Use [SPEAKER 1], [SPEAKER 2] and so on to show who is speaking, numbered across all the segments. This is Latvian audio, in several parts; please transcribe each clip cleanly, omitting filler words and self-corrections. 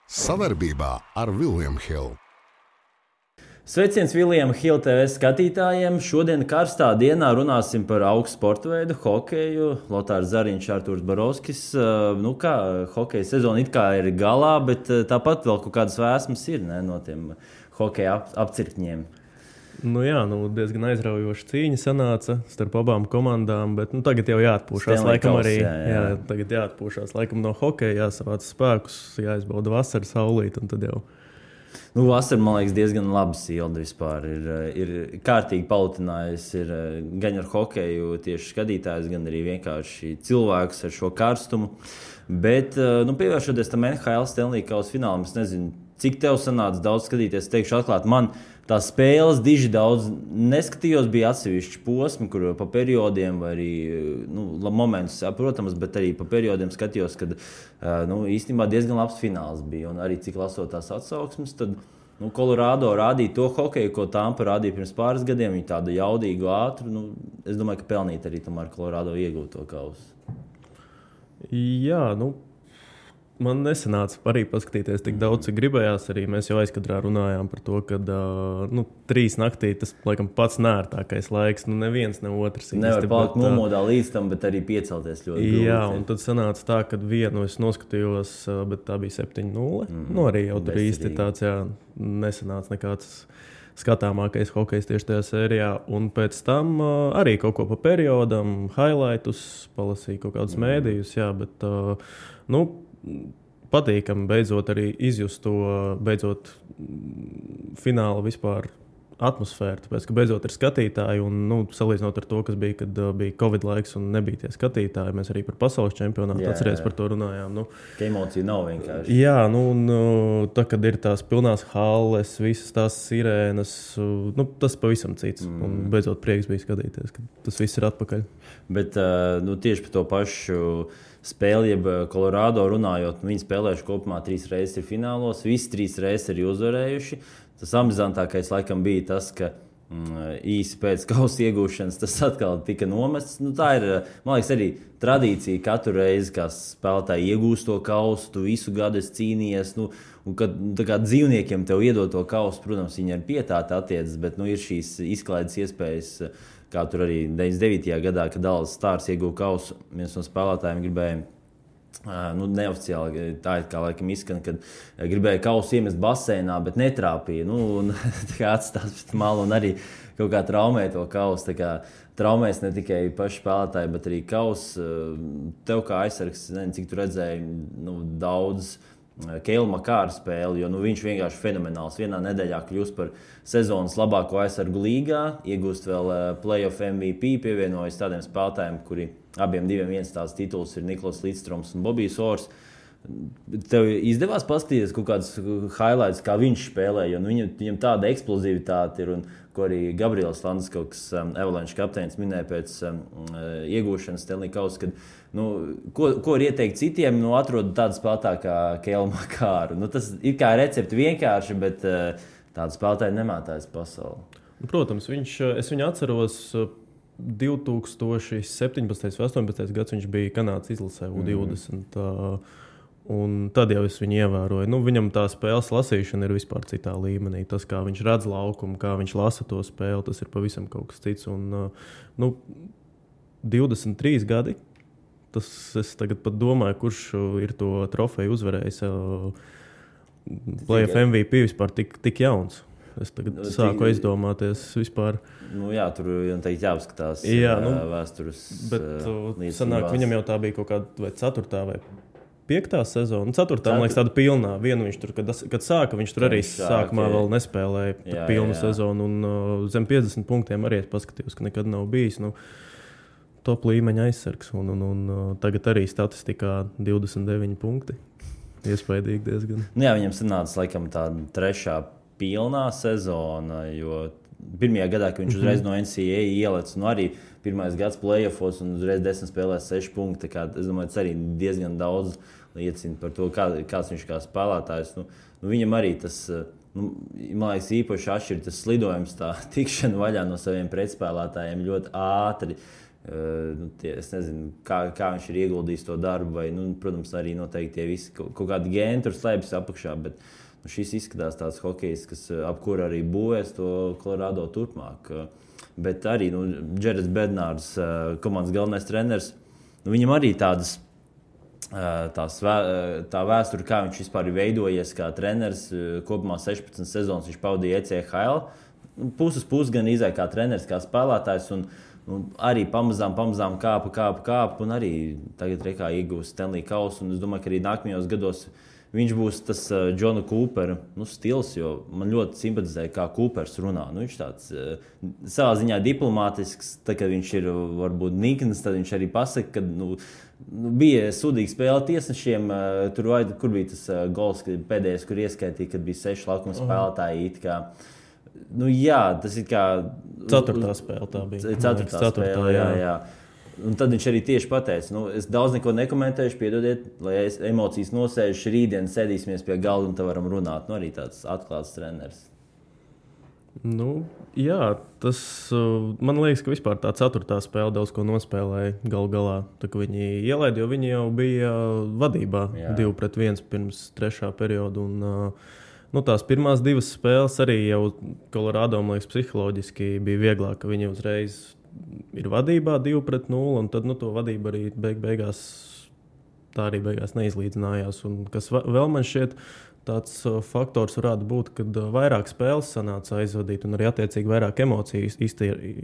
[SPEAKER 1] Savarbībā ar William Hill.
[SPEAKER 2] Sveiciens William Hill TV skatītājiem. Šodien karstā dienā runāsim par augstu sporta veidu, hokeju. Lotārs Zariņš, Artūrs Barovskis. Hokeja sezona it kā ir galā, bet tāpat vēl kaut kādas vēsmas ir no tiem hokeja apcirkņiem.
[SPEAKER 3] Diezgan aizraujoša cīņa sanāca starp abām komandām, bet tagad jau jāatpūšās. Tagad jāatpūšās laikam no hokeja, jāsavāc spēkus, jāizbauda vasaras saulīt un tad jau.
[SPEAKER 2] Vasara, man liekas, diezgan labi silda vispār. Ir kārtīgi palutinājusi gan ar hokeju tieši skatītājus, gan arī vienkārši cilvēkus ar šo karstumu. Bet, pievēršoties tam NHL Stanley Kausa finālam, es nezinu, cik tev sanāca daudz skatīties, teikšu atklāt, man tās spēles diži daudz neskatījos, bija atsevišķi posmi, kur pa periodiem vai arī momentus, protams, bet arī pa periodiem skatījos, kad īstenībā diezgan labs fināls bija. Un arī cik lasot tās atsauksmes, tad Colorado rādīja to hokeju, ko Tampa rādīja pirms pāris gadiem. Viņi tādu jaudīgu, ātru. Es domāju, ka pelnīt arī tomēr Colorado iegūt to kausu.
[SPEAKER 3] Jā, man nesanāca arī paskatīties tik daudz, cik gribējās. Arī mēs jau aizkadrā runājām par to, ka 3 naktī tas laikam pats nērtākais laiks. Neviens, ne otrs.
[SPEAKER 2] Nevar palikt nomodā līdz tam, bet arī piecelties ļoti grūti.
[SPEAKER 3] Jā, un tad sanāca tā, ka vienu es noskatījos, bet tā bija 7-0. Arī jau tur īsti tāds, nesanāca nekāds skatāmākais hokejs tieši tajā sērijā. Un pēc tam arī kaut ko pa periodam, highlightus, palasīju kaut kādus mēdījus, bet patīkami beidzot arī izjust to fināla vispār atmosfēru, tāpēc, ka beidzot ir skatītāji un salīdzinot ar to, kas bija, kad bija Covid laiks un nebija tie skatītāji, mēs arī par pasaules čempionātu atceries par to runājām.
[SPEAKER 2] Ka emocija nav vienkārši.
[SPEAKER 3] Jā, tā, kad ir tās pilnās halles, visas tās sirēnas, tas pavisam cits. Un beidzot prieks bija skatīties, ka tas viss ir atpakaļ.
[SPEAKER 2] Bet tieši par to pašu spēli, jeb Colorado runājot, viņi spēlējuši kopumā 3 reizes ir finālos, visi 3 reizes ir uzvarējuši. Tas amizantākais laikam bija tas, ka īsi pēc kausa iegūšanas tas atkal tika nomests. Tā ir, man liekas, arī tradīcija katru reizi, kā spēlētāji iegūst to kausu, tu visu gadu esi cīnījies. Un kad kā dzīvniekiem tev iedod to kausu, protams, viņi ar pietāti attiecas, bet ir šīs izklaides iespējas, kā tur arī 99. gadā, kad Dallas Stars ieguva kausu, viens no spēlētājiem gribēja, neoficiāli tā ir kā laikam izskan, kad gribēja kausu iemest baseinā, bet netrāpīja. Atstās pēc malu un arī kaut kā traumēja to kausu. Traumēs ne tikai paši spēlētāji, bet arī kausu. Tev kā aizsargs, nezinu, cik tu redzēji daudz Keila Makāra spēli, jo viņš vienkārši fenomenāls. Vienā nedēļā kļūst par sezonas labāko aizsargu līgā, iegūst vēl playoff MVP, pievienojas tādiem spēlētājiem, kuri abiem viens tāds tituls ir Niklas Līdstroms un Bobijs Ors. Tev izdevās paskatīties kaut kāds highlights, kā viņš spēlē, jo viņam tāda eksplozivitāte ir, un ko arī Gabriels Landeskauks, Avalanche kapteinis, minēja pēc iegūšanas Stanley Kausa, kad ko ir ieteikt citiem, atrod tādu spēlētāju kā Keila Makāru. Tas ir kā recepti vienkārši, bet tādu spēlētāju nemātājas pasauli.
[SPEAKER 3] Protams, es viņu atceros 2017. vai 2018. gads viņš bija Kanādas izlasē U20. Un tad jau es viņu ievēroju. Viņam tā spēles lasīšana ir vispār citā līmenī. Tas, kā viņš redz laukumu, kā viņš lasa to spēli, tas ir pavisam kaut kas cits. Un 23 gadi. Es tagad pat domāju, kurš ir to trofeju uzvarējis. Playoff MVP vispār tik jauns. Es tagad sāku aizdomāties vispār.
[SPEAKER 2] Tur teikt jāapskatās vēstures.
[SPEAKER 3] Bet sanāk, viņam jau tā bija kaut kāda vai 4. vai 5. sezona. 4. man liekas tāda pilnā. Vienu viņš tur, kad sāka, viņš tur arī sākumā vēl nespēlēja pilnu sezonu. Un zem 50 punktiem arī es paskatījos, ka nekad nav bijis. Top līmeņa aizsargs. Un tagad arī statistikā 29 punkti. Iespaidīgi diezgan.
[SPEAKER 2] Viņam sanāca laikam tā 3. pilnā sezona, jo pirmajā gadā, kad viņš uzreiz no NCAA ielec, arī pirmais gads playoffos un uzreiz 10 spēlēs 6 punkti. Es domāju, tas arī diezgan daudz liecina par to, kāds viņš kā spēlētājs. Viņam arī tas, man liekas, īpaši atšķir tas slidojums, tā tikšana vaļā no saviem pretspēlētājiem ļoti ātri. Es nezinu, kā viņš ir ieguldījis to darbu, vai, protams, arī noteikti tie visi kaut kādi gēni tur slēpjas apakšā, bet šis izskatās tāds hokejs, kas ap kuru arī būvēs to Colorado turpmāk. Bet arī Džerets Bednārs, komandas galvenais treneris, viņam arī tā vēsture, kā viņš vispār ir veidojies kā treneris. Kopumā 16 sezonas viņš pavadīja ECHL. Puses gan izēja kā treneris, kā spēlētājs. Un arī pamazām kāpa. Un arī tagad rekā iegūst Stanley Kausu. Un es domāju, ka arī nākamajos gados viņš būs tas Džona Kūpera stils, jo man ļoti simpatizēja, kā Kūpers runā. Viņš tāds savā ziņā diplomātisks, tad, kad viņš ir varbūt nikns, tad viņš arī pasaka, ka bija sūdīga spēle tiesnešiem. Kur bija tas gols pēdējais, kur ieskaitīja, kad bija 6 laukuma spēlētāji. Jā, tas ir kā
[SPEAKER 3] 4. spēle tā bija.
[SPEAKER 2] 4. spēle, jā. Un tad viņš arī tieši pateica, es daudz neko nekomentēšu, piedodiet, lai emocijas nosēžu, rītdien sēdīsimies pie galda un te varam runāt. Arī tāds atklāts treneris.
[SPEAKER 3] Jā, tas man liekas, ka vispār tā 4. spēle daudz ko nospēlēja galā. Tā kā viņi ielaida, jo viņi jau bija vadībā 2-1 pirms 3. perioda. Un, tās pirmās 2 spēles arī jau Colorado, man liekas, psiholoģiski bija vieglāk, ka viņi uzreiz ir vadībā 2-0, un tad to vadību arī beigās neizlīdzinājās. Un kas vēl man šķiet tāds faktors varētu būt, kad vairāk spēles sanāca aizvadīt un arī attiecīgi vairāk emociju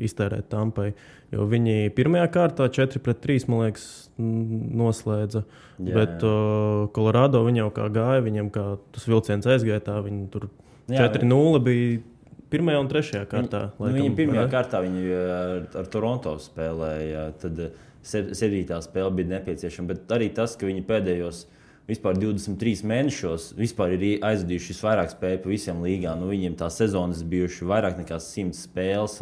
[SPEAKER 3] iztērēt Tampai. Jo viņi pirmajā kārtā 4-3, man liekas, noslēdza. Bet Colorado viņi jau kā gāja, viņam kā tas vilciens aizgāja, tā viņi tur 4-0 bija 1. un 3. kārtā.
[SPEAKER 2] Viņa pirmajā kārtā ar Toronto spēlēja, tad 7. spēle bija nepieciešama. Bet arī tas, ka viņi pēdējos vispār 23 mēnešos vispār ir aizvadījuši visvairāk spēļu pa visiem līgām. Viņiem tā sezonas bijuši vairāk nekā 100 spēles.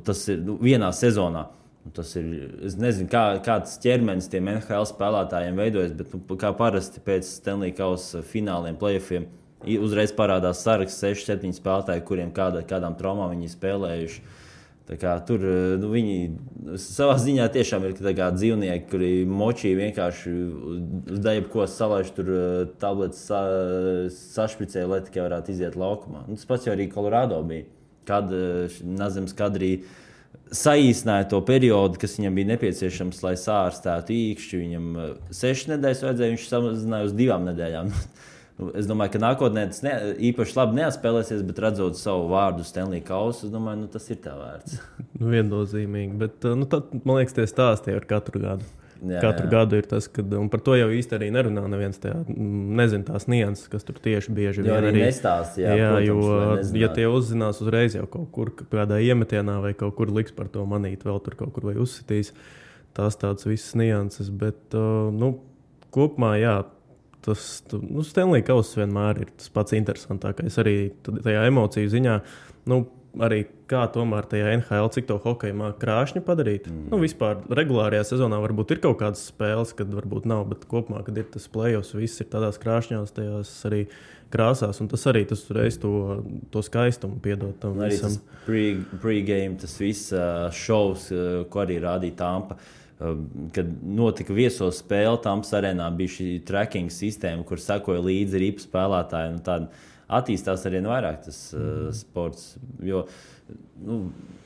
[SPEAKER 2] Tas ir vienā sezonā. Tas ir, es nezinu, kāds ķermenis tiem NHL spēlētājiem veidojas, bet kā parasti pēc Stanley Kausa fināliem, playoffiem, uzreiz parādās saraksts 6-7 spēlētāji, kuriem kādām traumām viņi spēlējuši. Tā kā tur viņi savā ziņā tiešām ir dzīvnieki, kuri močī vienkārši uz jebko salaiž tur tabletes sašpricē, lai tikai varētu iziet laukumā. Tas pats jau arī Colorado bija. Kad Nazems Kadrī saīsināja to periodu, kas viņam bija nepieciešams, lai sārstētu īkšķi. Viņam 6 nedēļas vajadzēja, viņš samazināja uz 2 nedēļām. Es domāju, ka nākotnē tas īpaši labi neatspēlēsies, bet redzot savu vārdu Stanley Kausu, es domāju, tas ir tā vērts.
[SPEAKER 3] Viennozīmīgi, bet tad, man liekas, tie stāsti ar katru gadu. Katru gadu ir tas, kad, un par to jau īsti arī nerunā neviens nezin tās nianses, kas tur tieši bieži vien
[SPEAKER 2] arī nestāst. Protams,
[SPEAKER 3] ja tie uzzinās uzreiz jau kaut kur kādā iemetienā vai kaut kur liks par to manīt, vēl tur kaut kur vai uzsitīs, tās tādas visas nianses, bet, kopumā, jā, Stanley Kauss vienmēr ir tas pats interesantākais. Arī tajā emociju ziņā, arī kā tomēr tajā NHL, cik to hokeju māk krāšņu padarīt. Vispār regulārajā sezonā varbūt ir kaut kādas spēles, kad varbūt nav, bet kopumā, kad ir tas playoffs, viss ir tādās krāšņās, tajās arī krāsās, un tas arī tas reiz to skaistumu piedod tam visam.
[SPEAKER 2] Arī tas pre-game, tas viss šovs, ko arī rādīja Tampa. Kad notika viesos spēle, Tampas arēnā bija šī tracking sistēma, kur sekoja līdzi ripu spēlētāji. Tāda attīstās arvien vairāk tas sports. Jo,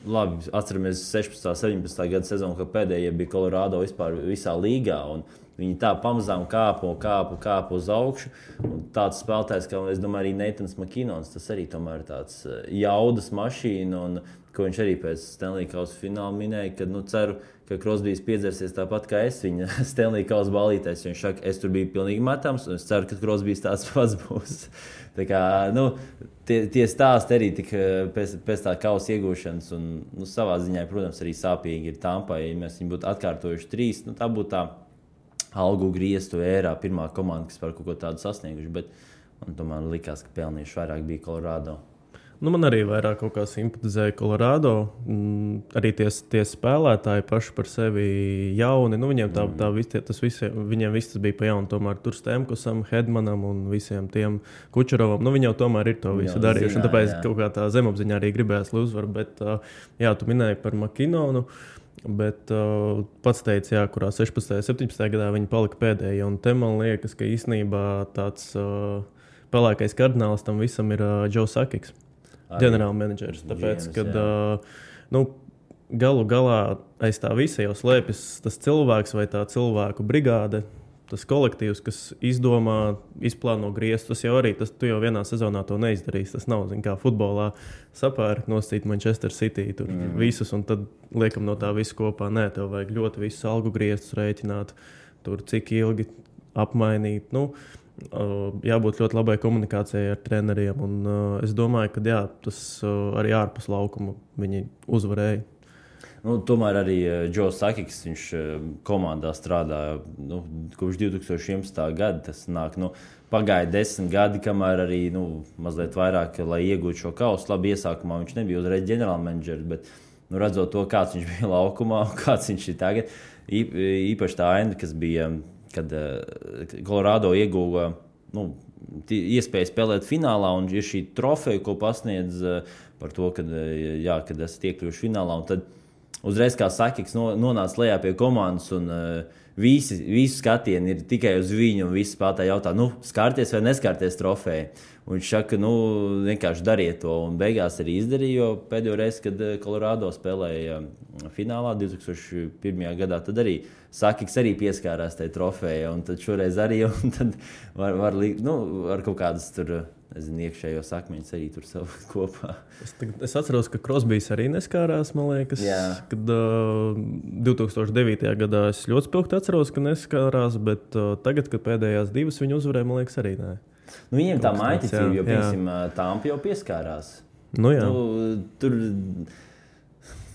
[SPEAKER 2] labi, atceramies 16. 17. gada sezonu, kad pēdējie bija Colorado vispār visā līgā. Viņi tā pamazām kāpa uz augšu. Un tāds spēlētājs, kā es domāju, arī Neitans Makinons, tas arī tomēr ir tāds jaudas mašīna. Un ko viņš arī pēc Stanley Kausa fināla minēja, ka ceru, ka Crosbys piedzersies tāpat kā es viņa Stanley Kausa balītēs. Viņš saka, es tur biju pilnīgi metams, un es ceru, ka Crosbys tāds pats būs. Tā kā, tie stāsti arī pēc tā kausa iegūšanas, un savā ziņā, protams, arī sāpīgi ir Tampai. Ja mēs viņu būtu atkārtojuši 3, tā būtu tā algu griestu ērā pirmā komanda, kas par kaut ko tādu sasnieguši, bet man tomēr likās, ka pelnījuši vairāk bija Colorado.
[SPEAKER 3] Man arī vairāk kaut kā simpatizēja Colorado. Arī tie spēlētāji paši par sevi jauni. Viņiem viņiem viss bija pa jaunu. Tomēr tur Stemkusam, Hedmanam un visiem tiem Kučerovam. Viņi jau tomēr ir to visu darījuši. Tāpēc kaut kā tā zemapziņā arī gribējās uzvaru. Bet, jā, tu minēji par Makinonu. Bet pats teica, kurā 16. un 17. gadā viņi palika pēdējie. Un te man liekas, ka īstenībā tāds pelēkais kardināls tam visam ir Joe Sakics, ģenerālmenedžers. Tāpēc, kad galu galā aiz tā visa jau slēpjas tas cilvēks vai tā cilvēku brigāde. Tas kolektīvs, kas izplāno grieztus, tas jau arī, tu jau vienā sezonā to neizdarīsi. Tas nav, kā futbolā sapērk nosīt Manchester City, tur visus, un tad liekam no tā visu kopā. Nē, tev vajag ļoti visus algu grieztus rēķināt, tur cik ilgi apmainīt. Jābūt ļoti labai komunikācijai ar treneriem, un es domāju, ka jā, tas arī ārpus laukuma viņi uzvarēja.
[SPEAKER 2] Tomēr arī Joe Sakics, viņš komandā strādāja kopš 2011. gada. Tas nāk, pagāja 10 gadi, kamēr arī mazliet vairāk, lai iegūtu šo kausu. Labi, iesākumā viņš nebija uzreiz ģenerālmenedžers, bet redzot to, kāds viņš bija laukumā un kāds viņš ir tagad, īpaši tā aina, kas bija, kad Colorado ieguva iespēju spēlēt finālā, un ir šī trofeja, ko pasniedz par to, kad esat iekļuvuši finālā. Un tad uzreiz, kā Sakics nonāca lejā pie komandas, un visi skatieni ir tikai uz viņu, un visi spēlētāji jautā, skārties vai neskārties trofeju. Un viņš saka, vienkārši dariet to, un beigās arī izdarīja, jo pēdējo reizi, kad Colorado spēlēja finālā 2001. gadā, tad arī Sakics arī pieskārās tai trofejai, un tad šoreiz arī, un tad var kaut kādas tur, iekšējos akmeņus arī tur savu kopā.
[SPEAKER 3] Es atceros, ka Crosbys arī neskārās, man liekas. Jā. Kad 2009. gadā es ļoti spilgti atceros, ka neskārās, bet tagad, kad pēdējās divas viņi uzvarēja, man liekas, arī nē.
[SPEAKER 2] Viņiem tā maiticība, jo, piemēram, Tampa jau pieskārās.
[SPEAKER 3] Jā.
[SPEAKER 2] Tur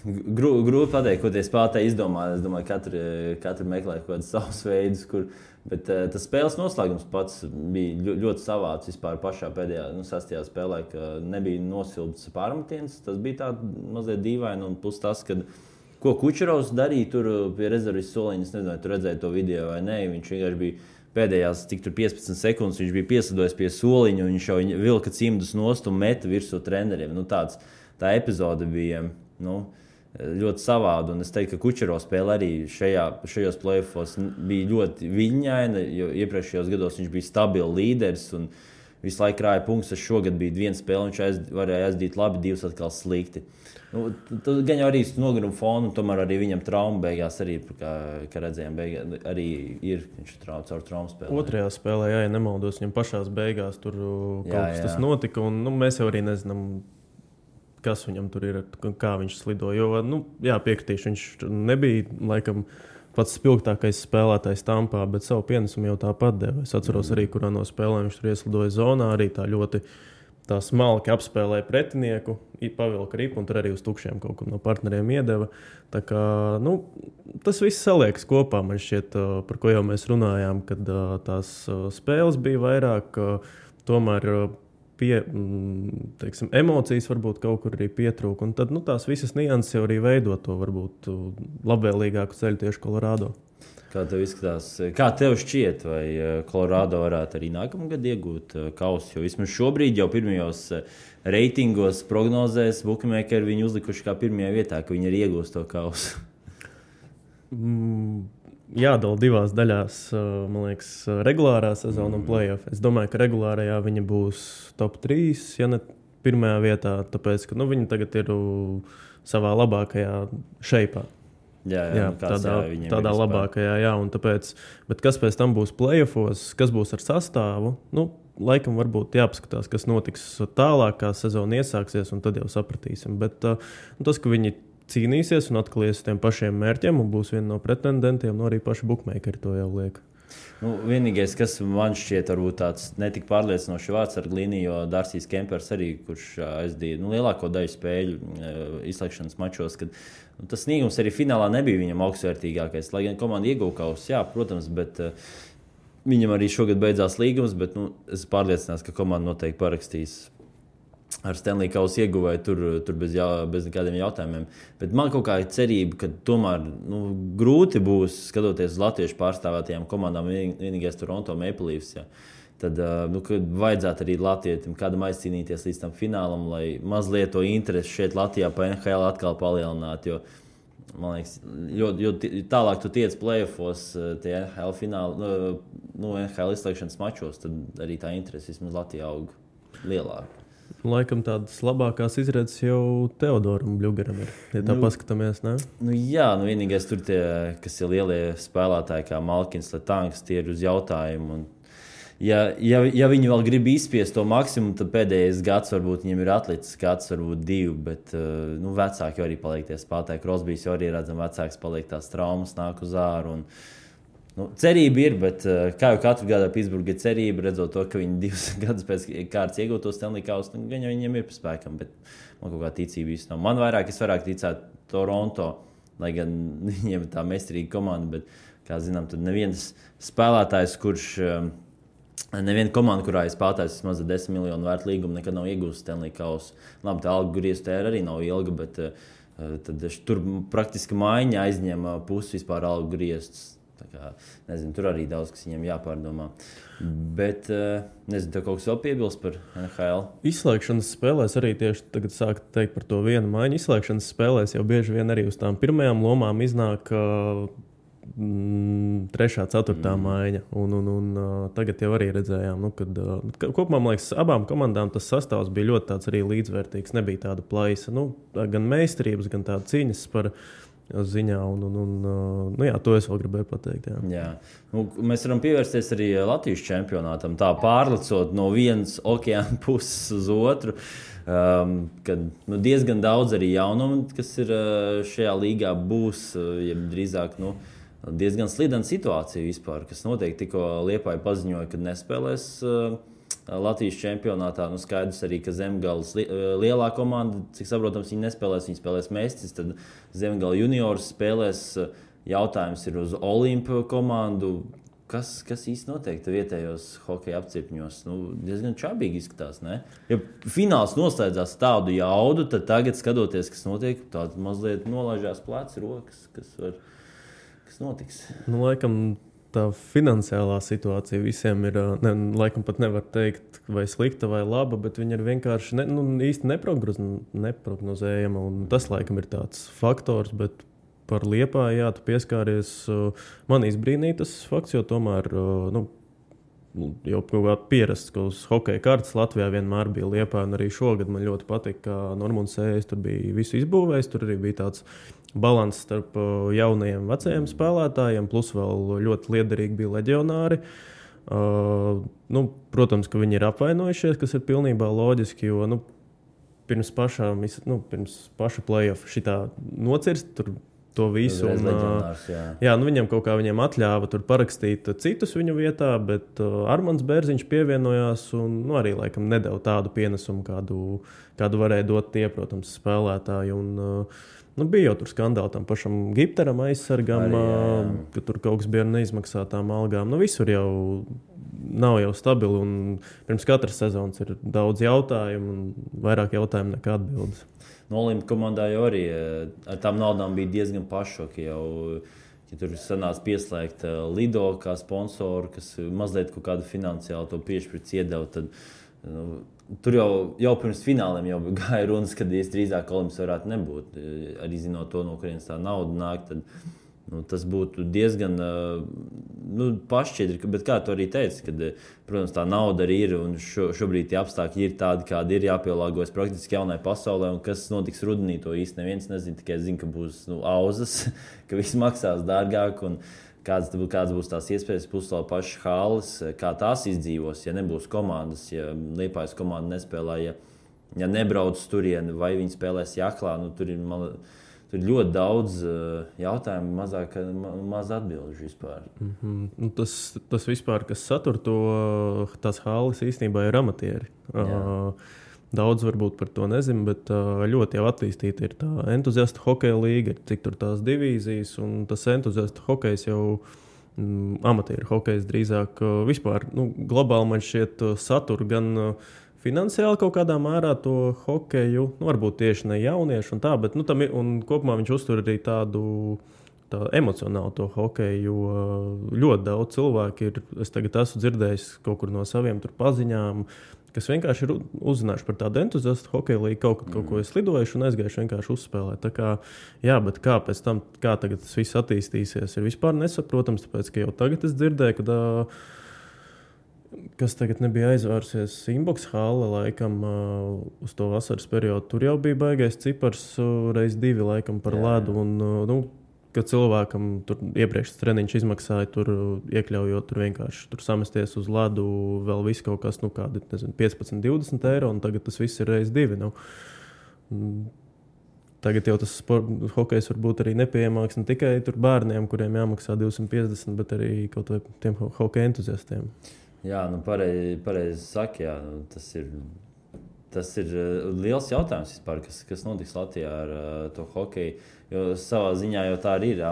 [SPEAKER 2] grūti pateikt, ko tie spēlētāji izdomā. Es domāju, katru meklē kaut kādus savus veidus, bet tas spēles noslēgums pats bija ļoti savāds vispār pašā pēdējā, 6. spēlē, ka nebija nosilpts pārmetiens. Tas bija tā mazliet dīvaini, un plus tas, ko Kučerovs darīja tur pie rezervis soliņa. Es nezinu, tu redzēji to video vai nē, viņš vienkārši bija pēdējās 15 sekundes, viņš bija piesadojis pie soliņa, un viņš jau vilka cimdus nost un meta virsū treneriem. Tā epizode bija ļoti savāda, un es teiktu, ka Kučerovs spēle arī šajos play-offos bija ļoti viļņaina, jo iepriekšējos gados viņš bija stabils līderis un visu laiku krāja punktus. Šogad bija viena spēle, viņš varēja aizdīt labi, divas atkal slikti. Gan jau arī noguruma fonu, tomēr arī viņam trauma beigās arī, kā redzējām, arī ir, viņš caur traumu spēlē.
[SPEAKER 3] Otrajā spēlē, ja nemaldos, viņam pašās beigās tur kaut kas tas notika, un mēs jau arī nezinām, kas viņam tur ir, kā viņš slido. Jo, piekritīšu, viņš nebija, laikam, pats spilgtākais spēlētājs Tampā, bet savu pienesumu jau tāpat deva. Es atceros arī, kurā no spēlēm viņš tur ieslidoja zonā, arī tā ļoti smalki apspēlēja pretinieku, pavilka ripu un tur arī uz tukšiem kaut kur no partneriem iedeva. Tā kā, tas viss saliekas kopā, man šķiet, par ko jau mēs runājām, kad tās spēles bija vairāk, tomēr emocijas varbūt kaut kur arī pietrūka. Un tad tās visas nianses jau arī veido to varbūt labvēlīgāku ceļu tieši Colorado.
[SPEAKER 2] Kā tev izskatās? Kā tev šķiet, vai Colorado varētu arī nākamgad iegūt kausu? Jo vismaz šobrīd jau pirmajos reitingos prognozēs bookmakeri viņu uzlikuši kā pirmajā vietā, ka viņi arī iegūs to kausu.
[SPEAKER 3] Jādala divās daļās, man liekas, regulārā sezona un play-off. Es domāju, ka regulārajā viņa būs top 3, ja ne pirmajā vietā, tāpēc, ka viņi tagad ir savā labākajā šeipā. Jā, tādā labākajā, un tāpēc, bet kas pēc tam būs play-offos, kas būs ar sastāvu, laikam varbūt jāpaskatās, kas notiks tālāk, kā sezona iesāksies, un tad jau sapratīsim. Bet tas, ka viņi cīnīsies un atkal ies uz tiem pašiem mērķiem un būs viena no pretendentiem, arī paši bookmakeri to jau liek.
[SPEAKER 2] Vienīgais, kas man šķiet varbūt tāds netik pārliecinošs vārds ar Glīniju, jo Dārsijs Kempers arī, kurš aizdīja lielāko daļu spēļu izslēgšanas mačos, kad tas sniegums arī finālā nebija viņam augstvērtīgākais. Lai gan komanda ieguva kausu, jā, protams, bet viņam arī šogad beidzās līgums, bet es pārliecināts, ka komanda noteikti parakstīs ar Stanley kausu ieguvēju tur bez nekādiem jautājumiem. Bet man kaut kā ir cerība, ka tomēr grūti būs, skatoties uz latviešu pārstāvētajām komandām, vienīgais Toronto Maple Leafs, ja. Tad vajadzētu arī latvietim kādam aizcīnīties līdz tam finālam, lai mazliet to interesi šeit Latvijā pa NHL atkal palielinātu. Jo Man liekas, jo tālāk tu tiec play-offos, tie NHL fināli, NHL izslēgšanas mačos, tad arī tā interese vismaz Latvijā aug lielāka.
[SPEAKER 3] Laikam tādas labākās izredzes jau Teodoram Bļugaram ir, ja tā paskatāmies, ne?
[SPEAKER 2] Jā, vienīgais tur tie, kas ir lielie spēlētāji, kā Malkins, Letanks, tie ir uz jautājumu. Un ja viņi vēl grib izspiest to maksimumu, tad pēdējais gads varbūt viņiem ir atlicis gads, varbūt 2, bet vecāki jau arī paliek tie spēlētāji. Crosbys jau arī redzam, vecāks paliek tās traumas, nāk uz āru. Cerība ir, bet kā jau katru gadu Pittsburgha ir cerība, redzot to, ka viņi 2 gadus pēc kārtas iegūtos Stanley Kausu, gan jau viņiem ir pa spēkam, bet man kaut kā ticība īsti nav. Es vairāk ticētu Toronto, lai gan viņiem ir tā meistarīga komanda, bet, kā zinām, tad neviens spēlētājs, neviena komanda, kurā ir spēlētājs vismaz 10 miljonu vērtu līgumu, nekad nav iegūst Stanley Kausu. Labi, tā algu griezta arī nav ilga, bet tad tur praktiski maiņa aizņem pusi vispār algu grieztas. Nezinu, tur arī daudz, kas viņiem jāpārdomā. Bet, nezinu, tev kaut kas vēl piebilst par NHL?
[SPEAKER 3] Izslēgšanas spēlēs arī tieši tagad sāk teikt par to vienu maiņu. Izslēgšanas spēlēs jau bieži vien arī uz tām pirmajām lomām iznāk 3., 4. maiņa. Un tagad jau arī redzējām, kad kopumā, man liekas, abām komandām tas sastāvs bija ļoti tāds arī līdzvērtīgs. Nebija tāda plaisa, gan meistarības, gan tāda cīņas par ziņā. Jā, to es vēl gribēju pateikt.
[SPEAKER 2] Jā. Mēs varam pievērsties arī Latvijas čempionātam, tā pārlecot no vienas okeāna puses uz otru. Kad diezgan daudz arī jaunumu, kas ir šajā līgā, būs drīzāk diezgan slidena situācija vispār, kas notiek. Tikko Liepāja paziņoja, ka nespēlēs Latvijas čempionātā. Skaidrs arī, ka Zemgales lielā komanda, cik saprotams, viņi nespēlēs, viņi spēlēs Mestis, tad Zemgala juniors spēlēs. Jautājums ir uz Olimpu komandu. Kas īsti notiek vietējos hokeja apcirkņos? Diezgan čabīgi izskatās, ne? Ja fināls noslēdzās tādu jaudu, tad tagad, skatoties, kas notiek, tāda mazliet nolaižās pleci, rokas, kas notiks.
[SPEAKER 3] Laikam tā finansiālā situācija visiem ir, laikam pat nevar teikt, vai slikta vai laba, bet viņa ir vienkārši īsti neprognozējama. Un tas, laikam, ir tāds faktors, bet par Liepāju, tu pieskāries. Man izbrīnīja tas fakts, jo tomēr jau kaut kā pierasts, ka uz hokeja kartes Latvijā vienmēr bija Liepāja, un arī šogad man ļoti patika, ka Normons Ējs tur bija visu izbūvējis, tur arī bija tāds balans starp jaunajiem vecajiem spēlētājiem, plus vēl ļoti liederīgi bija leģionāri. Protams, ka viņi ir apvainojušies, kas ir pilnībā loģiski, jo pirms paša play-off šitā nocirst tur to visu. Viņam kaut kā atļāva tur parakstīt citus viņu vietā, bet Armands Bērziņš pievienojās un arī laikam nedeva tādu pienesumu, kādu varēja dot tie, protams, spēlētāji. Bija jau tur skandāli tam pašam Gipteram aizsargam, ka tur kaut kas bija ar neizmaksātām algām. Visur jau nav jau stabili, un pirms katras sezonas ir daudz jautājumu, un vairāk jautājumu nekā atbildes.
[SPEAKER 2] Olimpu komandā jau arī ar tām naudām bija diezgan pašoki. Ja tur sanāca pieslēgt Lido kā sponsoru, kas mazliet kaut kādu finansiālu to piešķirts iedeva, tad tur jau pirms fināliem jau gāja runas, kad drīzāk Olimps varētu nebūt. Arī zinot to, no kurienes tā nauda nāk, tad tas būtu diezgan pašķiedri. Bet kā tu arī teici, kad, protams, tā nauda arī ir un šobrīd tie apstākļi ir tādi, kādi ir, jāpielāgojas praktiski jaunai pasaulē. Un kas notiks rudenī, to īsti neviens nezina, tikai zina, ka būs auzas, ka viss maksās dārgāk. Un kādas būs tās iespējas, puslau pašas halas, kā tās izdzīvos, ja nebūs komandas, ja Liepājas komanda nespēlē, ja nebrauc turieni, vai viņi spēlēs Jaklā. Tur ir ļoti daudz jautājumu, maz atbilžu vispār.
[SPEAKER 3] Tas vispār, kas satur tās halas, īstenībā ir amatieri. Daudz varbūt par to nezinu, bet ļoti jau attīstīta ir tā entuziastu hokeja līga, cik tur tās divīzijas, un tas entuziastu hokejs jau amatieru hokejs drīzāk vispār. Globāli man šķiet satur gan finansiāli kaut kādā mērā to hokeju, varbūt tieši ne jauniešu un tā, bet un kopumā viņš uztur arī tādu emocionāli to hokeju, jo ļoti daudz cilvēku ir, es tagad esmu dzirdējis kaut kur no saviem tur paziņām, kas vienkārši ir uzzinājuši par tādu entuziastu hokeja līgu, kaut ko es lidojuši un aizgājuši vienkārši uzspēlēt. Tā kā, jā, bet kā pēc tam, kā tagad tas viss attīstīsies, ir vispār nesaprotams, tāpēc, ka jau tagad es dzirdēju, ka kas tagad nebija aizvērsies Inbox hāle, laikam, uz to vasaras periodu. Tur jau bija baigais cipars reiz 2, laikam, par ledu. Un, ka cilvēkam tur iepriekš treniņš izmaksāja, tur iekļaujot, tur vienkārši tur samesties uz ledu, vēl viss kaut kas, kādi, nezinu, 15-20 eiro, un tagad tas viss ir reiz 2. Tagad jau tas hokejs var būt arī nepieejamāks ne tikai tur bērniem, kuriem jāmaksā 250, bet arī kaut vai tiem hokeja entuziastiem.
[SPEAKER 2] Jā, pareizi saka, jā, tas ir liels jautājums vispār, kas notiks Latvijā ar to hokeju, jo savā ziņā jau tā arī ir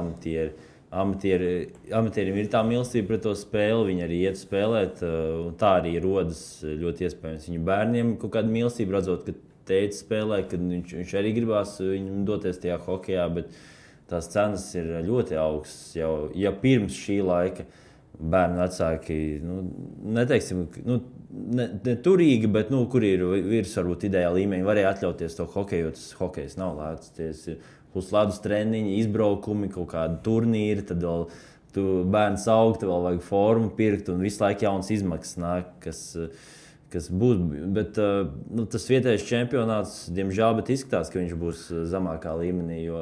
[SPEAKER 2] amatieriem ir tā mīlestība pret to spēli, viņi arī iet spēlēt, un tā arī rodas ļoti iespējams viņu bērniem kaut kāda mīlestība, redzot, ka tētis spēlē, kad viņš arī gribās viņam doties tajā hokejā, bet tās cenas ir ļoti augstas jau, ja pirms šī laika. Bērnu vecāki, neteiksim, ne turīgi, bet, kur ir virs varbūt ideāla līmeņa, varēja atļauties to hokeju, jo tas hokejs nav lēts. Plus ledus treniņi, izbraukumi, kaut kādi turnīri, tad vēl tu bērns aug, vēl vajag formu pirkt un visu laiku jauns izmaksas nāk, kas būs. Bet tas vietējais čempionāts, diemžēl, bet izskatās, ka viņš būs zemākā līmenī, jo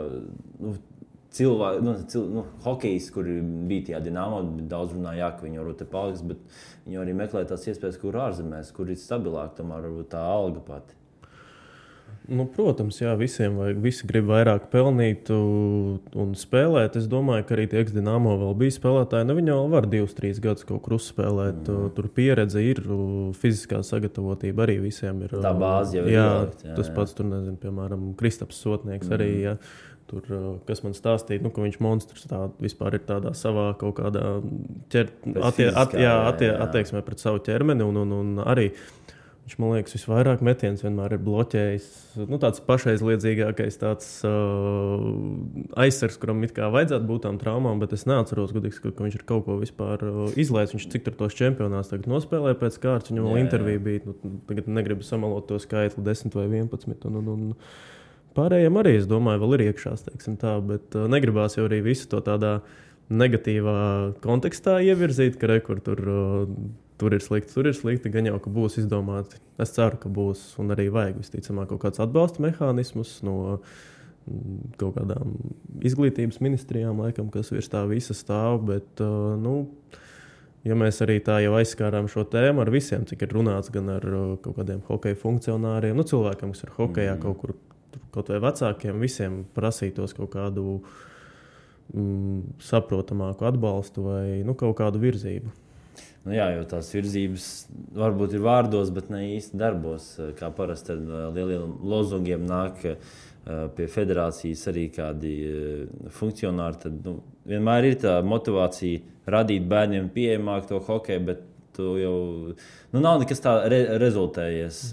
[SPEAKER 2] hokejs, kur bija tajā Dinamo, daudz runāja, ka viņi varbūt te paliks, bet viņi arī meklē tās iespējas, kur ārzemēs, kur ir stabilāk, tomēr varbūt tā alga pati.
[SPEAKER 3] Protams, jā, visiem vajag, visi grib vairāk pelnīt un spēlēt. Es domāju, ka arī tie ex-Dinamo vēl bija spēlētāji. Viņi jau var 2-3 gadus kaut kur uzspēlēt. Tur pieredze ir, fiziskā sagatavotība arī visiem ir.
[SPEAKER 2] Tā bāze jau ir ielikt.
[SPEAKER 3] Tas pats tur, nezinu, piemēram, Kristaps Sotnieks arī, jā. Tur, kas man stāstīja, ka viņš monstrs vispār ir tādā savā kaut kādā attieksmē pret savu ķermeni un arī viņš, man liekas, visvairāk metiens vienmēr ir bloķējis. Tāds pašaizliedzīgākais tāds aizsargs, kuram it kā vajadzētu būt tām traumām, bet es neatceros, godīgi, ka viņš ir kaut ko vispār izlaists. Viņš cik tur tos čempionāts tagad nospēlēja pēc kārtas, viņam vēl intervija bija. Tagad negribu samalot to skaitli 10 vai 11. Un pārējiem arī, es domāju, vēl ir iekšās, teiksim tā, bet negribās jau arī visu to tādā negatīvā kontekstā ievirzīt, ka tur ir slikti, gan jau, ka būs izdomāti. Es ceru, ka būs un arī vajag visticamāk kaut kāds atbalsta mehānismus no kaut kādām izglītības ministrijām, laikam, kas virs tā visa stāv, bet, ja mēs arī tā jau aizskārām šo tēmu ar visiem, cik ir runāts gan ar kaut kādiem hokeja funkcionāriem, cilvēkiem, kas ir hokejā kaut kur, kaut vai vecākiem, visiem prasītos kaut kādu saprotamāku atbalstu vai kaut kādu virzību.
[SPEAKER 2] Jā, jo tās virzības varbūt ir vārdos, bet ne īsti darbos. Kā parasti ar lieliem lozungiem nāk pie federācijas arī kādi funkcionāri. Tad vienmēr ir tā motivācija radīt bērniem pieejamāk to hokeju, bet tu jau nav nekas tā rezultējies.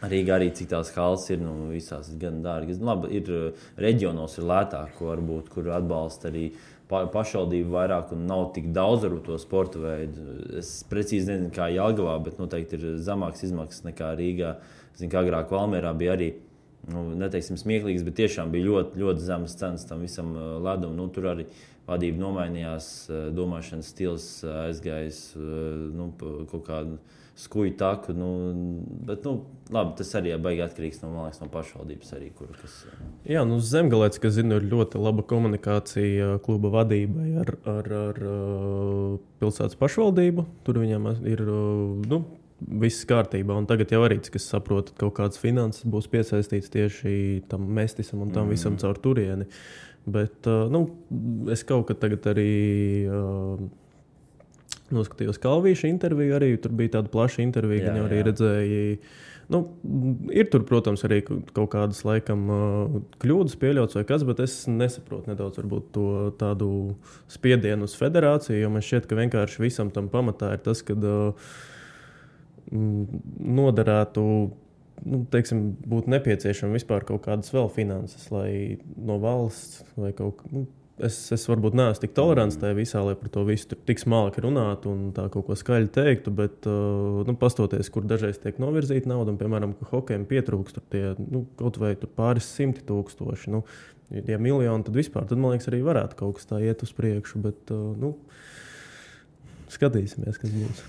[SPEAKER 2] Rīgā arī cik tās halas ir, visās ir gan dārgas. Labi, ir reģionos ir lētāk, varbūt, kur atbalsta arī pašvaldību vairāk un nav tik daudz ar to sporta veidu. Es precīzi nezinu, kā Jelgavā, bet noteikti ir zemāks izmaksas nekā Rīgā. Zinu, ka agrāk Valmierā bija arī, neteiksim smieklīgs, bet tiešām bija ļoti, ļoti zemas cenas tam visam ledum. Tur arī vadība nomainījās, domāšanas stils aizgājis kaut kādu skuju taku, bet labi, tas arī baigi atkarīgs no pašvaldības arī, kas...
[SPEAKER 3] Jā, Zemgalēts, kas zinu, ir ļoti laba komunikācija kluba vadībai ar pilsētas pašvaldību. Tur viņam ir, viss kārtībā, un tagad jau arī, cik es saprotu, kaut kādas finanses būs piesaistīts tieši tam mestisam un tam visam caur turieni. Bet, es kaut kad tagad arī... noskatījos Kalvīša interviju, arī tur bija tāda plaša intervija, gan jau arī redzēja. Ir tur, protams, arī kaut kādas laikam kļūdas pieļauts vai kas, bet es nesaprotu nedaudz varbūt to tādu spiedienu uz federāciju, jo man šķiet, ka vienkārši visam tam pamatā ir tas, kad noderētu, būtu nepieciešama vispār kaut kādas vēl finanses, lai no valsts vai kaut es varbūt neesmu tik tolerants tajā visā, lai par to visu tik smalki runātu un tā kaut ko skaļi teiktu, bet pastoties, kur dažreiz tiek novirzīta nauda, un, piemēram, ka hokejam pietrūkst kaut vai pāris 100 000, ja miljoni, tad vispār, tad, man liekas, arī varētu kaut kas tā iet uz priekšu, bet, skatīsimies, kas būs.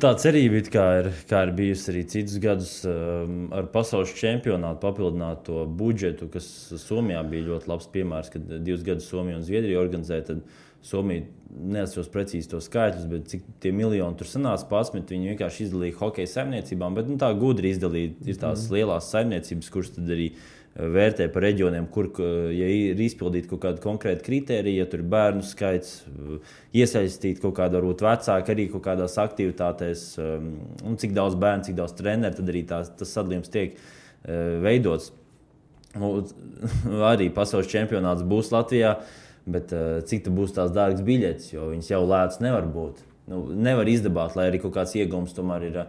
[SPEAKER 2] Tā cerība kā ir bijusi arī citus gadus ar pasaules čempionātu papildināt to budžetu, kas Somijā bija ļoti labs piemērs, kad 2 gadus Somija un Zviedrija organizēja, tad Somija neatceros precīzi to skaitļus, bet cik tie miljoni tur sanāca 11, viņi vienkārši izdalīja hokeja saimniecībām, bet tā gudri izdalīja, ir tās lielās saimniecības, kuras tad arī vērtē par reģioniem, kur, ja ir izpildīta kaut kāda konkrēta kritērija, ja tur ir bērnu skaits, iesaistīt kaut kādu varbūt vecāku arī kaut kādās aktivitātēs, un cik daudz bērnu, cik daudz treneru, tad arī tas sadalījums tiek veidots. Arī pasaules čempionāts būs Latvijā, bet cik būs tās dārgas biļetes, jo viņas jau lētas nevar būt. Nevar izdabāt, lai arī kaut kāds iegums tomēr ir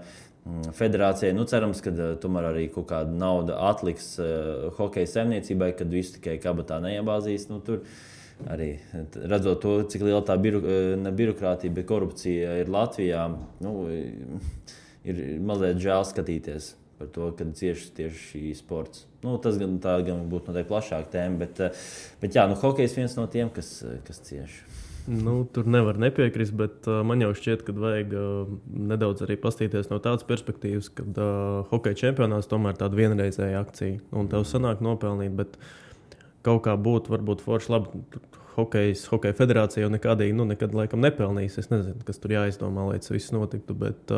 [SPEAKER 2] federācijai. Cerams, ka tomēr arī kaut kāda nauda atliks hokeja saimniecībai, kad visu tikai kabatā neiebāzīs. Tur arī redzot to, cik liela tā birokrātija, bet korupcija ir Latvijā, ir mazliet žēl skatīties par to, kad cieši tieši šī sports. Tas gan būtu noteikti plašāka tēma, bet jā, hokejs viens no tiem, kas cieši.
[SPEAKER 3] Tur nevar nepiekrist, bet man jau šķiet, ka vajag nedaudz arī pastīties no tādas perspektīvas, kad hokeja čempionāts tomēr tāda vienreizēja akcija. Un tev sanāk nopelnīt, bet kaut kā būtu varbūt forši labi. Hokeja federācija jau nekad laikam nepelnīs. Es nezinu, kas tur jāizdomā, lai tas viss notiktu, bet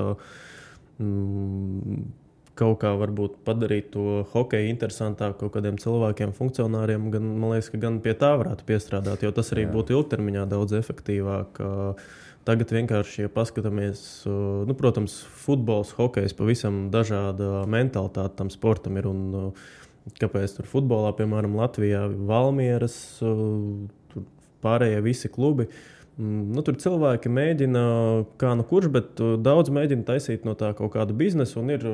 [SPEAKER 3] kaut kā varbūt padarīt to hokeju interesantāku kaut kādiem cilvēkiem, funkcionāriem, man liekas, ka gan pie tā varētu piestrādāt, jo tas arī būtu ilgtermiņā daudz efektīvāk. Tagad vienkārši, ja paskatāmies, protams, futbols, hokejs, pavisam dažāda mentalitāte tam sportam ir, un kāpēc tur futbolā, piemēram, Latvijā, Valmieras, tur pārējie visi klubi, tur cilvēki mēģina, kā kurš, bet daudz mēģina taisīt no tā kaut kādu biznesu, un ir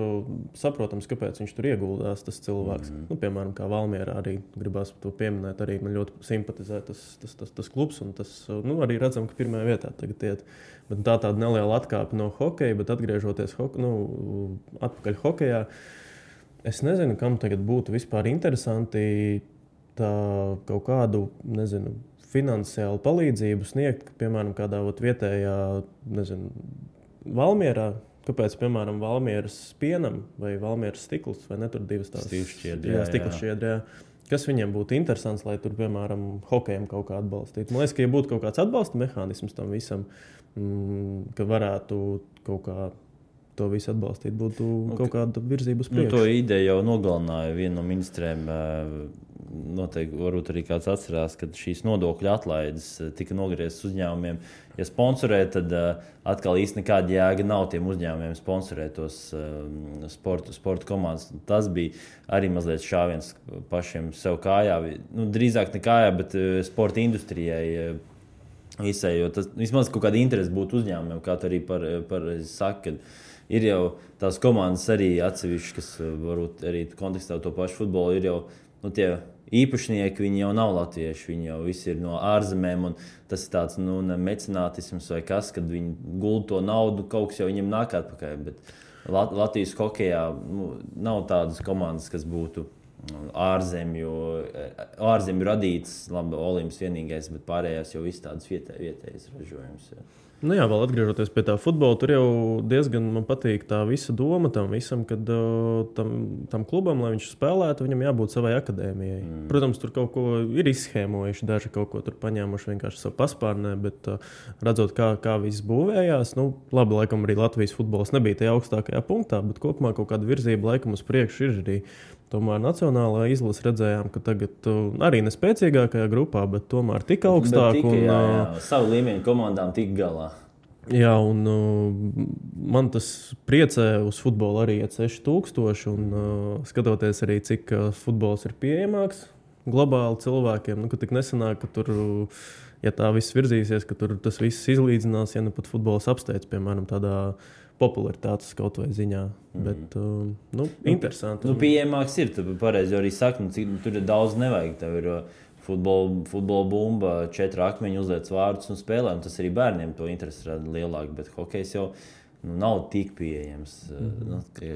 [SPEAKER 3] saprotams, kāpēc viņš tur ieguldās, tas cilvēks. Piemēram, kā Valmierā arī gribās to pieminēt, arī man ļoti simpatizē tas klubs, un tas arī redzam, ka pirmajā vietā tagad iet. Bet tāda neliela atkāpe no hokeja, bet atgriežoties atpakaļ hokejā, es nezinu, kam tagad būtu vispār interesanti tā kaut kādu, finansiālu palīdzību sniegt, piemēram, kādā vietējā, Valmierā, kāpēc, piemēram, Valmieras pienam vai Valmieras stikls, vai ne tur divas tās stikla šķiedrē, kas viņiem būtu interesants, lai tur, piemēram, hokejam kaut kā atbalstītu. Man liekas, ka ja būtu kaut kāds atbalsta mehānisms tam visam, ka varētu kaut kā to visu atbalstīt, būtu kaut kāda virzība uz priekšu.
[SPEAKER 2] To ideju jau nogalināja viena no ministrēm. Noteikti varbūt arī kāds atcerās, kad šīs nodokļu atlaides tika nogrieztas uzņēmumiem. Ja sponsorē, tad atkal īsti nekāda jēga nav tiem uzņēmumiem sponsorēt tos sporta komandas. Tas bija arī mazliet šāviens pašiem sev kājā. Drīzāk ne kājā, bet sporta industrijai visai, jo tas vismaz kaut kāda interese būtu uzņēmumiem, kā tu arī par saka, kad ir jau tās komandas arī atsevišķi, kas varbūt arī kontekstā to pašu futbolu ir jau tie īpašnieki, viņi jau nav latvieši, viņi jau visi ir no ārzemēm, un tas ir tāds mecenātisms vai kas, kad viņi gulda to naudu, kaut kas jau viņiem nāk atpakaļ, bet Latvijas hokejā nav tādas komandas, kas būtu ārzemju radītas, labi, Olimps vienīgais, bet pārējās jau viss tādas vietējas ražojums.
[SPEAKER 3] Jā, vēl atgriežoties pie tā futbola, tur jau diezgan man patīk tā visa doma tam visam, kad tam klubam, lai viņš spēlētu, viņam jābūt savai akadēmijai. Protams, tur kaut ko ir izschēmojuši, daži kaut ko tur paņēmuši vienkārši savu paspārnē, bet redzot, kā viss būvējās, labi, laikam arī Latvijas futbols nebija tajā augstākajā punktā, bet kopumā kaut kāda virzība laikam uz priekšu ir arī. Tomēr nacionālā izlase redzējām, ka tagad arī nespēcīgākajā grupā, bet tomēr tik augstāk.
[SPEAKER 2] Savu līmeņu komandām tik galā.
[SPEAKER 3] Jā, un man tas priecē uz futbolu arī iet 6000, un skatoties arī, cik futbols ir pieejamāks globāli cilvēkiem, ka tik nesanāk, ka tur, ja tā viss virzīsies, ka tur tas viss izlīdzinās, ja pat futbols apsteidz, piemēram, tādā popularitātes kaut vai ziņā, bet interesanti.
[SPEAKER 2] Pieejamāks ir, tu pareizi arī saki, tur ir daudz nevajag, tev ir futbola bumba, 4 akmeņi, uzliec vārdus un spēlē. Un tas arī bērniem to interesi rada lielāk, bet hokejs jau nav tik pieejams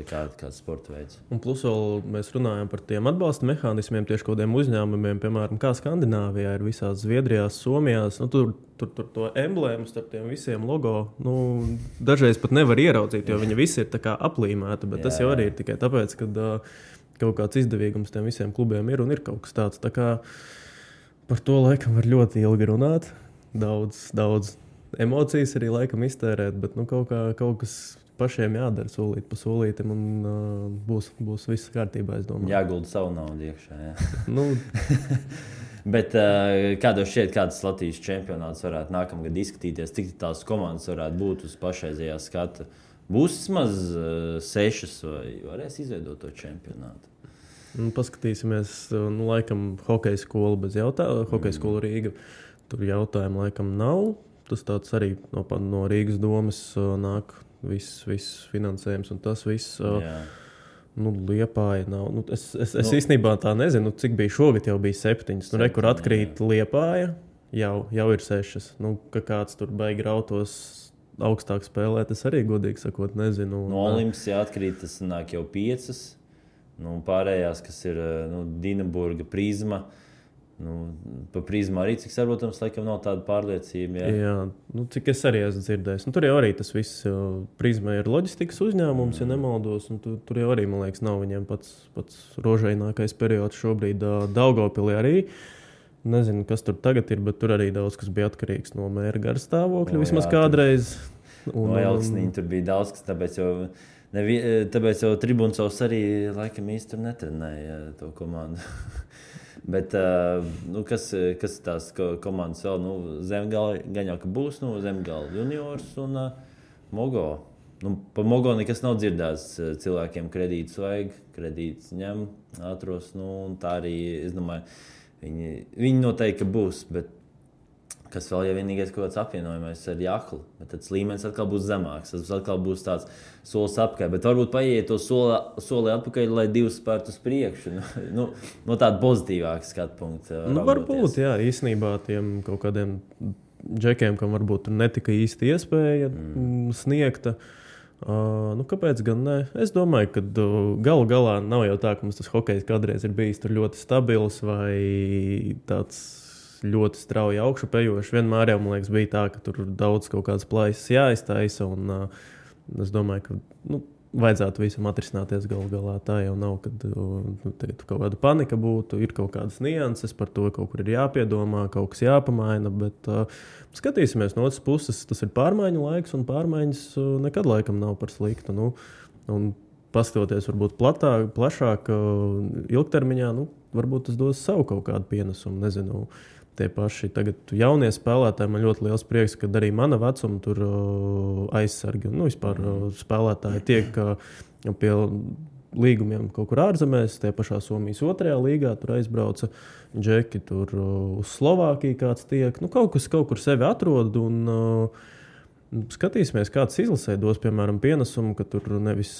[SPEAKER 2] kāds sporta veids.
[SPEAKER 3] Un plus vēl mēs runājam par tiem atbalsta mehānismiem, tieši kādiem uzņēmumiem, piemēram, kā Skandināvijā ir visās Zviedrijās, Somijās. Tur to emblēmu starp tiem visiem logo dažreiz pat nevar ieraudzīt, jo viņi visi ir tā kā aplīmēti, bet tas jau arī ir tikai tāpēc, ka kaut kāds izdevīgums tiem visiem klubiem ir un ir kaut kas tāds. Tā kā par to laikam var ļoti ilgi runāt, daudz emocijas arī laikam iztērēt, bet kaut kas pašiem jādara solīt pa solītim un būs viss kārtībā, es domāju.
[SPEAKER 2] Jāgulda savu naudu iekšā, jā. Bet kādos šķiet, kāds Latvijas čempionāts varētu nākamgad izskatīties, cik tās komandas varētu būt uz pašreizējā skata? Būs vismaz 6 vai varēs izveidot to čempionātu?
[SPEAKER 3] Paskatīsimies, laikam hokeja skola bez jautājuma, hokeja skola Rīga, tur jautājumu laikam nav. Tas tāds arī no Rīgas domas nāk viss finansējums un tas viss. Liepāja nav. Es īstenībā tā nezinu, cik bija šogad, jau bija 7. Kur atkrīt Liepāja, jau ir 6. Ka kāds tur baigi rautos augstāk spēlēt, es arī godīgi sakot nezinu.
[SPEAKER 2] No Olimps atkrīt, tas nāk jau 5. Pārējās, kas ir Dinaburga, Prizma. Pa Prizmu arī, cik sarotams, laikam nav tāda pārliecība. Jā,
[SPEAKER 3] cik es arī esmu dzirdējis. Tur jau arī tas viss, Prizma ir loģistikas uzņēmums, ja nemaldos, un tur jau arī, man liekas, nav viņiem pats rožainākais periods šobrīd. Daugavpilī arī. Nezinu, kas tur tagad ir, bet tur arī daudz, kas bija atkarīgs no mēra garstāvokļa, vismaz kādreiz.
[SPEAKER 2] No Elksniņa tur bija daudz, kas tāpēc jau Tribuncovs arī laikam īsti tur netrenēja to komandu. Bet kas tās komandas vēl? Zemgala gan jau, ka būs Zemgala juniors un Mogo. Pa Mogo nekas nav dzirdēts. Cilvēkiem kredītus vajag, kredītus ņem, atros. Un tā arī, es domāju, viņi noteikti būs. Bet kas vēl, ja vienīgais kaut kāds apvienojumais ar Jahlu, bet tad līmenis atkal būs zemāks. Tas atkal būs tāds solis apakaļ. Bet varbūt paiet to soli atpakaļ, lai 2 spērtu uz priekšu. No tāda pozitīvāka skatu punkta.
[SPEAKER 3] Varbūt, jā, īstenībā tiem kaut kādiem džekiem, kam varbūt netika īsti iespēja sniegta. Kāpēc gan ne? Es domāju, ka galu galā nav jau tā, ka mums tas hokejs kādreiz ir bijis tur ļoti stabils vai tāds ļoti strauji augšupejoši. Vienmēr jau, man liekas, bija tā, ka tur daudz kaut kādas plaisas jāiztaisa, un es domāju, ka vajadzētu visam atrisināties galu galā. Tā jau nav, kad kaut kāda panika būtu, ir kaut kādas nianses, par to kaut kur ir jāpiedomā, kaut kas jāpamaina, bet skatīsimies no otras puses, tas ir pārmaiņu laiks, un pārmaiņas nekad laikam nav par sliktu. Un paskatoties varbūt plašāk, ilgtermiņā, varbūt tas dos savu kaut kādu pienesumu, nezinu. Tie paši tagad jaunie spēlētāji, man ļoti liels prieks, ka arī mana vecuma tur aizsargi un vispār spēlētāji tiek pie līgumiem kaut kur ārzemēs, tie pašā Somijas 2. līgā, tur aizbrauca džeki, tur uz Slovākiju kāds tiek. Kaut kur sevi atrod un skatīsimies, kāds izlasē dos, piemēram, pienesumu, ka tur nevis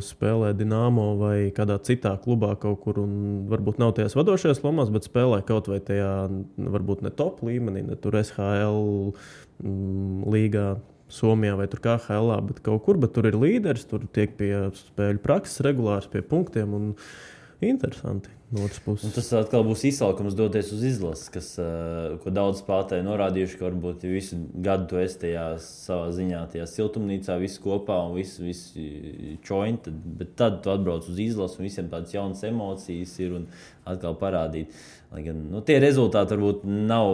[SPEAKER 3] spēlē Dinamo vai kādā citā klubā kaut kur un varbūt nav tajās vadošajās lomās, bet spēlē kaut vai tajā varbūt ne top līmenī, ne tur SHL līgā Somijā vai tur KHL, bet kaut kur, bet tur ir līderis, tur tiek pie spēļu prakses regulārs, pie punktiem un interesanti no otras puses.
[SPEAKER 2] Un tas atkal būs izsaukums doties uz izlases, ko daudz spēlētāji norādījuši, ka varbūt visu gadu tu esi tajā savā ziņā, tajā siltumnīcā, visi kopā un visi čoņi, bet tad tu atbrauc uz izlases un visiem tādas jaunas emocijas ir un atkal parādīt. Lai gan, tie rezultāti varbūt nav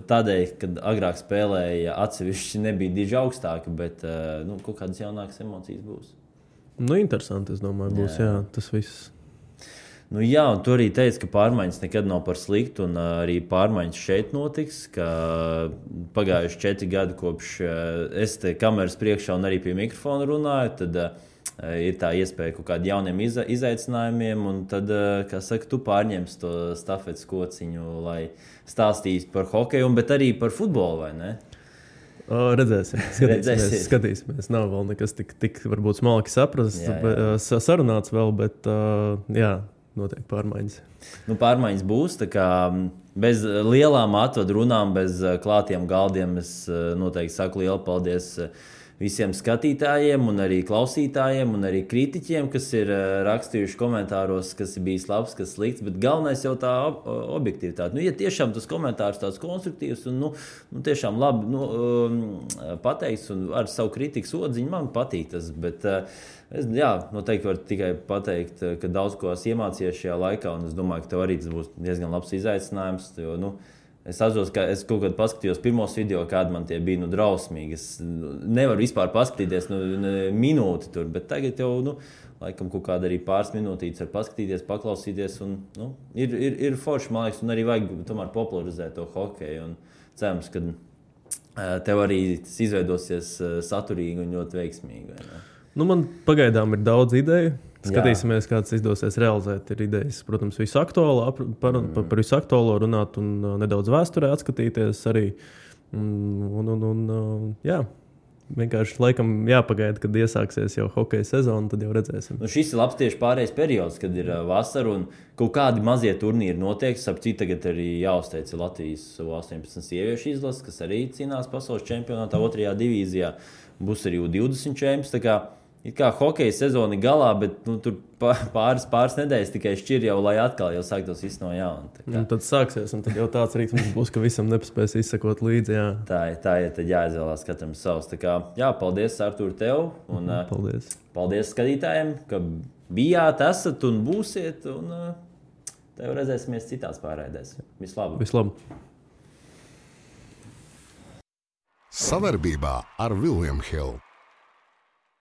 [SPEAKER 2] tādēļ, kad agrāk spēlēja atsevišķi nebija diži augstāki, bet kaut kādas jaunākas emocijas būs.
[SPEAKER 3] Interesanti, es domāju, būs, jā, tas viss.
[SPEAKER 2] Jā, un tu arī teici, ka pārmaiņas nekad nav par sliktu, un arī pārmaiņas šeit notiks, ka pagājuši 4 gadi kopš es te kameras priekšā un arī pie mikrofona runāju, tad ir tā iespēja kaut kādiem jauniem izaicinājumiem, un tad, kā saka, tu pārņemsi to stafetes kociņu, lai stāstītu par hokeju, bet arī par futbolu, vai ne?
[SPEAKER 3] Redzēsim. Skatīsimies. Nav vēl nekas tik varbūt smalki saprast, sarunāts vēl, bet jā. notiek pārmaiņas?
[SPEAKER 2] Pārmaiņas būs. Bez lielām atvadu runām, bez klātiem galdiem es noteikti saku lielu paldies visiem skatītājiem, un arī klausītājiem, un arī kritiķiem, kas ir rakstījuši komentāros, kas ir bijis labs, kas slikts. Bet galvenais jau tā objektivitāte. Ja tiešām tas komentārs tāds konstruktīvs un tiešām labi pateikts un ar savu kritikas odziņu, man patīk tas. Bet es noteikti varu tikai pateikt, ka daudz ko esmu iemācījies šajā laikā, un es domāju, ka tev arī tas būs diezgan labs izaicinājums. Jo, es atceros, ka es kaut kad paskatījos pirmos video, kādi man tie bija drausmīgi. Es nevaru vispār paskatīties minūti tur, bet tagad jau, laikam, kaut kāda arī pāris minūtītes var paskatīties, paklausīties. Un, ir forši, man liekas, un arī vajag tomēr popularizēt to hokeju. Un cerams, ka tev arī tas izveidosies saturīgi un ļoti veiksmīgi.
[SPEAKER 3] Man pagaidām ir daudz ideju. Skatīsimies, kā tas izdosies realizēt. Ir idejas, protams, visu aktuālo, par visu aktuālo runāt un nedaudz vēsturē atskatīties arī. Vienkārši laikam jāpagaida, kad iesāksies jau hokeja sezona, tad jau redzēsim.
[SPEAKER 2] Šis ir labs tieši pārējais periods, kad ir vasara un kaut kādi mazie turnīri notiek. Sapcīt, tagad arī jāuzteic Latvijas 18 sieviešu izlases, kas arī cīnās pasaules čempionātā 2. divīzijā. Būs arī U20 čempions. It kā hokeja sezona ir galā, bet tur pāris nedēļas tikai šķir jau, lai atkal jau sāktos viss no jauna.
[SPEAKER 3] Tad sāksies, un tad jau tāds rītums būs, ka visam nepaspēs izsekot līdzi. Jā.
[SPEAKER 2] Tā ir, tad jāizvēlās katram savs. Paldies, Artūr, tev. Un, paldies skatītājiem, ka bijāt, esat un būsiet. Un tev redzēsimies citās pārraidēs.
[SPEAKER 3] Vislabāk.
[SPEAKER 1] Savarbībā ar William Hill.